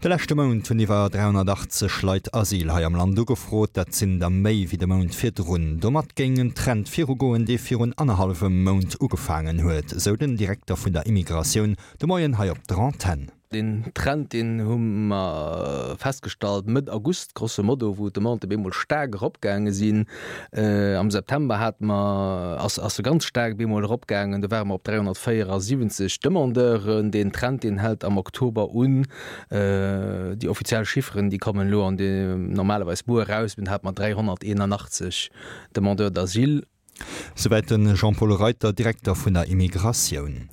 De leschte Mount hunn iwwer 380 Leit Asyl hei am Land ugefrot. Dat sinn der méi wéi de Mount virdrun. Domat géing en Trend virugoen, dee virun annerhallwem Mount ugefaangen huet, sou den Direkter vun der Immigratioun de Moien hei op der Antenn. Deen Trend, deen hu mer festgestallt Mëtt August, grosso modo, wou d'Demandë bemol staark eropgaange sinn. Am September hate mer, ass ass se ganz staark bemol eropgaangen, do ware mer op 374 Demandeuren. Deen Trend, deen hält am Oktober un. Déi offiziell Chifferen, déi kommen elo an de normalerweis muer eraus, mee do hate mer 381 Demandeurs d'asile. Souwäit de Jean-Paul Reiter, Direkter vun der Immigratioun.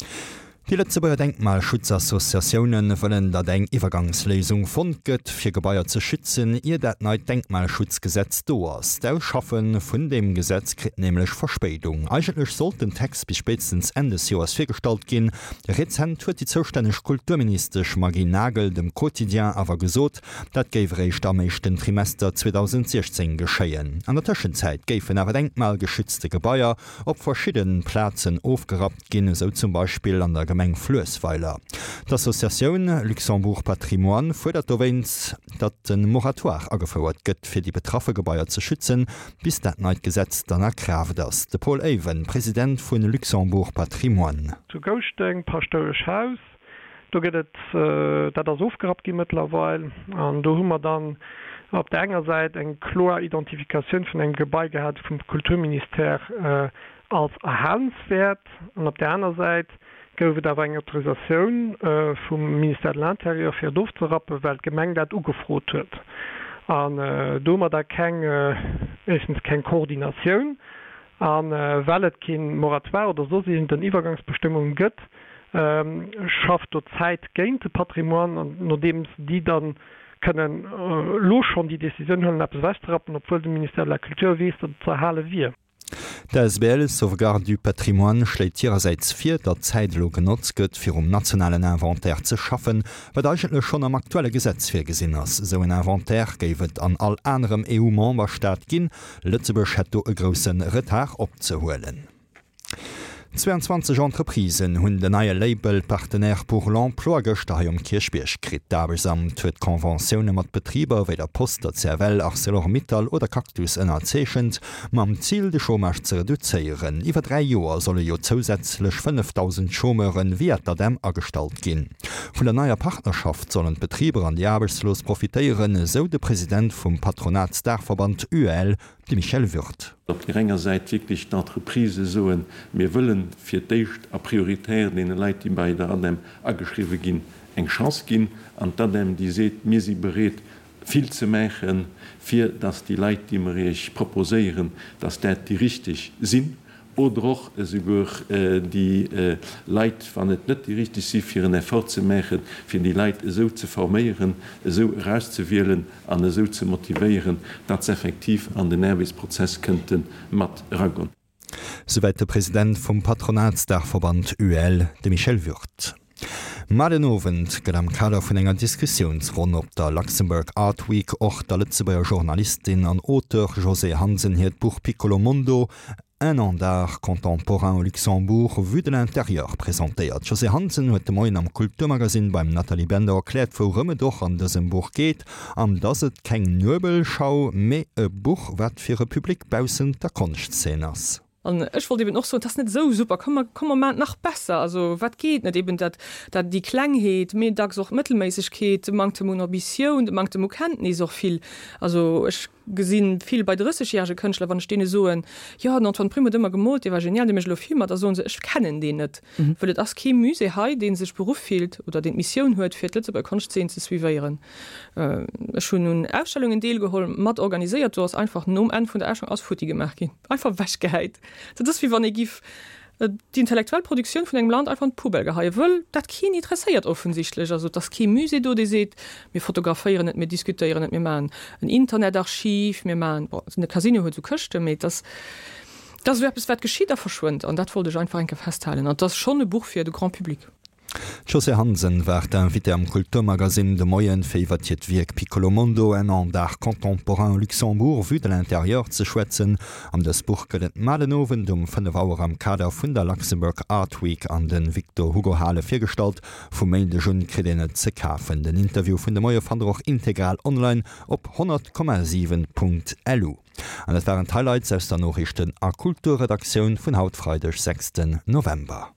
Déi Lëtzebuerger Denkmalschutzassociatioune wëllen, datt eng Iwwergangsléisung fonnt gëtt, fir Gebaier ze schützen, ier dat neit Denkmalschutzgesetz do ass. D'Ausschaffe vun deem Gesetz kritt nämlech Verspéidung. Eigentlech sollt den Text bis spéitstens Enn des Joers virgestallt ginn. Rezent huet déi zoustänneg Kulturministesch Maggy Nagel dem Quotidien awer gesot, Dat géif eréischt am éischten Trimester 2016 geschéien. An der Tëschenzäit géifen awer denkmalgeschützte Gebaier op verschidde Plazen ofgerappt ginn, esou zum Beispill an der Gemeng Fluessweiler. D'Associatioun Luxembourg Patrimoine fuerdert dowéinst, datt e Moratoire agefouert gëtt, fir déi betraffe Gebaier ze schützen, bis dat neit Gesetz dann a Kraaft ass. De Paul Eyven, President vu Luxembourg Patrimoine. Zu Gouschteng, Paschtouesch Haus, Do gëtt et, dat ass ofgerappt gi mëttlerweil, an do hu mer dann op där enger Säit eng kloer Identifikatioun vun engem Gebai gehat vum Kulturministère als erhalenswäert, an op där aner Säit gouf et awer eng Autorisatioun vum Ministère de l'Intérieur fir et ofzerappen, well d'Gemeng dat ugefrot huet. An do hu mer da keng, éischtens keng Koordinatioun, A well et kee Moratoire oder soss iergend Iwwergangsbestëmmunge gëtt, schafft do d'Zäit géint de Patrimoine. An nodeems déi da kënnen elo schonn déi Decisioun huelen, eppes ewechzerappen, obwuel de Ministère de la Culture weess, datt et ze erhale wier. D'Asbl Sauvegarde du Patrimoine schléit hirersäits vir, datt d'Zäit elo genotzt gëtt, fir um nationalen Inventaire ze schaffen, wat eigentlech schonn am aktuelle Gesetz virgesinn ass. Esou en Inventaire géif et an all anerem EU-Memberstaat ginn. Lëtzebuerg hätt do e grousse Retard opzehuelen. 22 Entreprisen hunn den neie Label Partenaire pour l'emploi gëschter hei um Kierchbierg kritt. D'Aarbechtsamt huet Conventioune mat Betriber wéi der Post, der CFL, Arcelor Mittal oder Cactus ënnerzeechent, mam Zil de Chômage ze reduzéieren. Iwwer 3 Joer solle jo zousätzlech 5.000 Chômeure via d'ADEM agestallt ginn. Vun der neier Partnerschaft sollen d'Betriber an déi Aarbechtslos profitéieren, esou de President vum Patronatsdaachverband UEL, de Michel Würth. Op där enger Säit wierklech d'Entreprisë soen, mir wëllen fir d'éischt a prioritär deene Leit, déi bei der ADEM ageschriwwe ginn, eng Chance ginn, an d'ADEM, déi seet, mir si bereet vill ze maachen, fir datt déi Leit, déi mer Iech proposéieren, datt dat déi richteg sinn, oder och esouguer déi Leit, wann et net déi richteg si, fir en Effort ze maachen, fir déi Leit esou ze forméieren, esou erauszewielen an esou ze motivéieren, datt se effektiv an den Aarbechtsprozess kënnte mat eragoen. Souwäit de President vum Patronatsdaachverband UEL, de Michel Würth. Mar den Owend gëtt am Kader vun enger Diskussiounsronn op der Luxembourg Art Week och der Lëtzebuerger Journalistin an Auteur Josée Hansen hiert Buch Piccolo Mondo, Un an d'art contemporain au Luxembourg vu de l'intérieur presentéiert. D'Josée Hansen huet de Moien am Kulturmagasinn beim Nathalie Bender erkläert, wourëm et och an dësem Buch geet an dass et keng Nuebelschau, mee e Buch, wat fir e Public baussent der Konschtzeen ass. An ech wollt eben och soen, et ass net esou super, komm mer, komm mer maachen et nach besser. Also wat geet net? Eben dat, dat déi Klengheet, mee dacks och d'Mëttelméissegkeet, de Manktem un Ambitioun, de Manktem u Kenntnis och vill. Also ech Gesinn vill bei 30 järege Kënschtler, wann ech deene soen, jo den Antoine Prim huet ëmmer gemoolt, dee war genial, dee mécht elo Filmer, da soen se, ech kennen deen net, wëll et ass kee Musée hei, dee sech beruff fillt oder deen d'Missioun huet, fir d'Lëtzebuerger Konschtzeen ze suivéieren. Ech hunn un Ausstellungen deelgeholl, mat organiséiert, do ass einfach nom Enn vun der Ausstellung alles futti gemaach ginn, einfach ewechgehäit. Dat ass wéi wann ee giff Déi intellektuell Produktioun vun engem Land einfach an d'Poubelle geheien, wëll dat keen interesséiert offensichtlech. Also et ass kee Musée do, dee seet, mir fotograféieren et, mir diskutéieren et, mir maachen en Internetarchiv, mir maachen, bon, de Casino huet esou Këschten, mee et ass, et ass esou eppes, wat geschitt a verschwënnt. An dat wollt ech einfach eng Kéier festhalen. An et ass schonn e Buch fir de Grand public. D'Josée Hansen war d'Invitée am Kulturmagasinn de Moien, fir iwwert hiert Wierk Piccolo Mondo, un an d'art contemporain au Luxembourg vu de l'intérieur ze schwätzen. An dëst Buch gëtt et mar den Owend um 5 Auer am Kader vun der Luxembourg Art Week an de Victor Hugo Hale virgestallt. Vum Méindeg un kritt een et ze kafen. Den Interview vun de Moie fannt der och integral online op 100,7.lu. An dat waren d'Highlights aus der Noriichten a Kulturredaktioun vun haut Freideg 6 November.